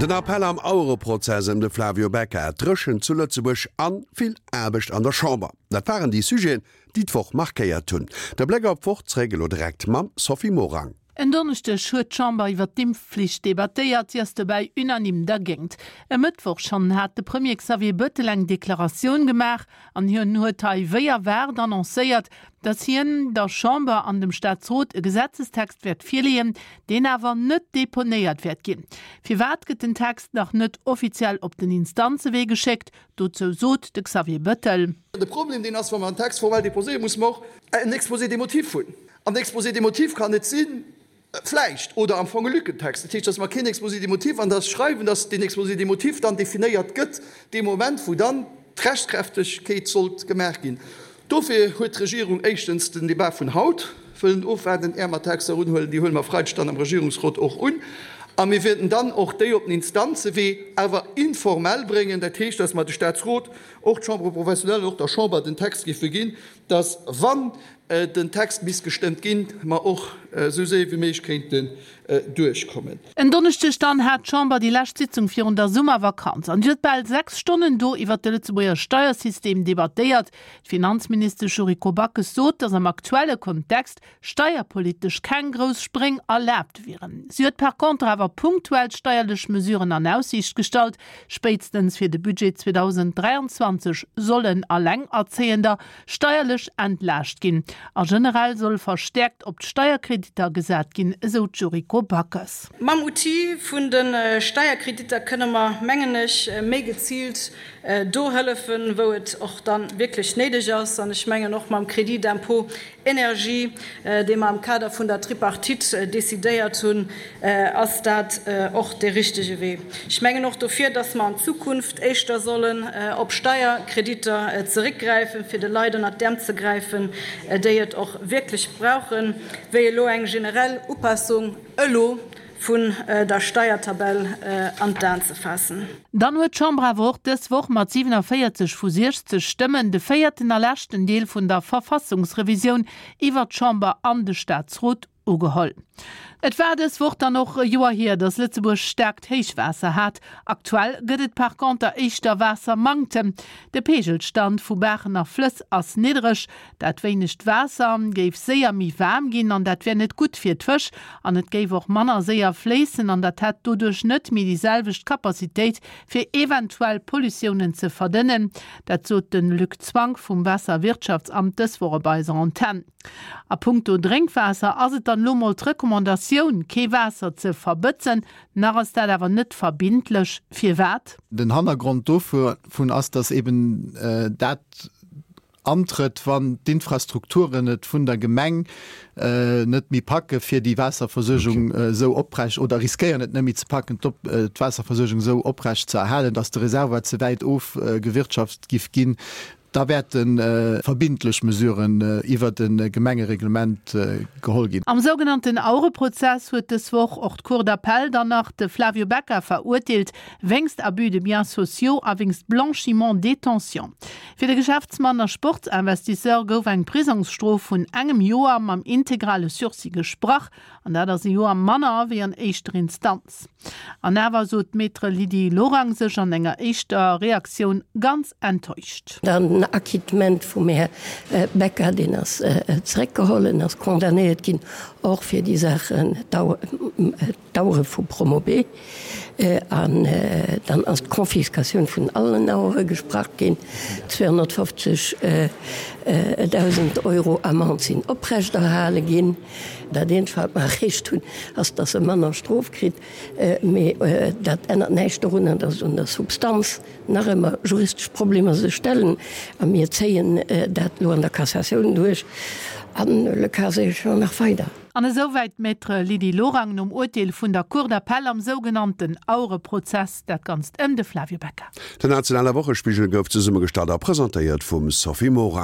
Den Appell am Auereprozess ëm de Flavio Becca, d'Dréchent zu Lëtzebuerg an vill Aarbecht an der Chamber, dat waren déi Sujeten, déi d'Woch markéiert hunn. De Bléck op d'Woch zeréck elo direkt mam Sophie Morang. En Donneschdeg huet d'Chamber iwwer d'Impfflicht debattéiert. Si ass dobäi unanime dergéint. E Mëttwoch schonn hat de Premier Xavier Bëttel eng Deklaratioun gemaach an hien huet hei wéi erwaart annoncéiert, datt hien der Chamber an dem Staatsrot e Gesetzestext wäert virleeën, deen awer net deponéiert wäert ginn. Firwat gëtt den Text nach net offiziell op den Instanzewee geschéckt? Dozou sot de Xavier Bëttel. De Problem deen ass, wa mer en Text formell déposéieren, musse mer och en Exposé des motifs hunn. An den Exposé des motifs kann net sinn, vläicht, oder am Fong e Lückentext. Dat heescht, dass mer keen Exposé des motifs an dass schreiwen, dass deen Exposé des motifs dann definéiert gëtt dee Moment, wou dann d'Rechtskräftegkeet sollt gemaach ginn. Dofir huet d'Regierung éischtens den Débat vun haut wëllen ofwaarden, är mer Texter unhuelen. Déi huele mer Freideg dann am Regierungsrot och un. A mir wäerten dann och déi op den Instanzewee awer informell bréngen. Dat heescht, dass mer de Statsrot, och d'Chambre professionnelle an och der Chamber den Text géife ginn, dass, wann den Text misst gestëmmt ginn, mer och esou séier wéi méiglech kéinten duerchkommen. En Donneschdeg dann hat d'Chamber déi lescht Sitzung virun der Summervakanz an huet bal 6 Stonnen do iwwert de Lëtzebuerger Steiersystem debattéiert. D'Finanzministesch Yuriko Backes sot, datt am aktuelle Kontext steierpolitesch keng grouss Spréng erlaabt wieren. Si huet par contre awer punktuell steierlech Mesuren an Aussiicht gestallt. Spéitstens fir de Budget 2023 sollen Allengerzéiender steierlech entlaascht ginn a generell soll verstäerkt op d'Steierkreditter gesat ginn, esou d'Yuriko Backes. Mam Outil vun de Steierkreditter kënne mer, mengen ech, méi geziilt do hëllefen, wou et och da wierklech néideg ass. An ech mengen och mam Crédit d'impôt énergie, dee mer am Kader vun der Tripartite decidéiert hunn, ass dat och dee richtege Wee. Ech mengen och dofir, dass mer an Zukunft éischter sollen op Steierkreditter zeréckgräifen, fir de Leit ënnert d'Äerm ze gräifen, déi et och wierklech brauchen, wéi elo eng generell Upassung elo vun der Steiertabell an d'Aen ze faassen. Dann huet d'Chamber awer och dës Woch mat 47 vu 60 Stëmmen de véierten a leschten Deel vun der Verfassungsrevisioun iwwert d'Chamber an de Staatsrot ugeholl. Et war dës Woch dann och e Joer hier, datt Lëtzebuerg staarkt Héichwaasser hat. Aktuell gëtt et par conter éischter Waassermanktem. De Peegelstand vu Baachen a Flëss ass niddereg. Dat wéinegt Waasser géif séier méi waarm ginn an dat wär net gutt fir d'Fësch. An et géif och manner séier fléissen an dat hätt doduerch net méi déi selwecht Capacitéit fir eventuell Pollutiounen ze verdënnen. Dat sot de Luc Zwank vum Waasserwirtschaftsamt dës Woch op eiser Antenn. A punkto Drénkwaasser ass et dann elo mol d'Recommandatioun, kee Waasser ze verbëtzen. Nach ass dat awer net verbindlech. Firwat? Den Hannergrond dovun ass, datt eben dat antrëtt, wann d'Infrastrukturen et vun der Gemeng net méi packe fir déi Waasserversuergung esou oprecht, oder riskéieren et net méi ze packen, d'Waasserversuergung esou oprecht ze erhalen, datt de Reservoir ze wäit ofgewirtschaft giff ginn. Da wäerte verbindlech Mesuren iwwert e Gemengereglement geholl ginn. Am sougenannten Auereprozess huet dës Woch och d'Cour d'appel dann nach de Flavio Becca verurteelt, wéinst Abus de biens sociaux a wéinst Blanchiment détention. Fir de Geschäftsmann a Sportsinvestisseur gouf eng Prisongsstrof vun engem Joer mam integrale Sursis gesprach, an dat ass e Joer manner wéi an éischter Instanz. An awer sot d'Maître Lydie Lorang sech an enger éischter Reaktioun ganz enttäuscht. Dann den Acquittement vum Här Becca, deen ass zeréckgeholl, en ass condamnéiert ginn och fir déi Saachen, d'Auere vu Promobe. An dann ass d'Confiscatioun vun allen Auere gesprach ginn. 250.000 Euro Amende sinn oprechterhale ginn. Dat eenzegt, wat mer erreecht hunn, ass, dass e manner Strof kritt. Mee dat ännert näischt dorunner, dass un der Substanz nach ëmmer juristesch Problemer sech stellen. A mir zéien dat elo an der Cassatioun duerch an le cas échéant nach weider. An esouwäit d'Maître Lydie Lorang nom Urteel vun der Cour d'appel am sougenannten Auereprozess, dat Ganzt ëm de Flavio Becca. Den nationale Wochespigel gouf zesummegestallt a presentéiert vum Sophie Morang.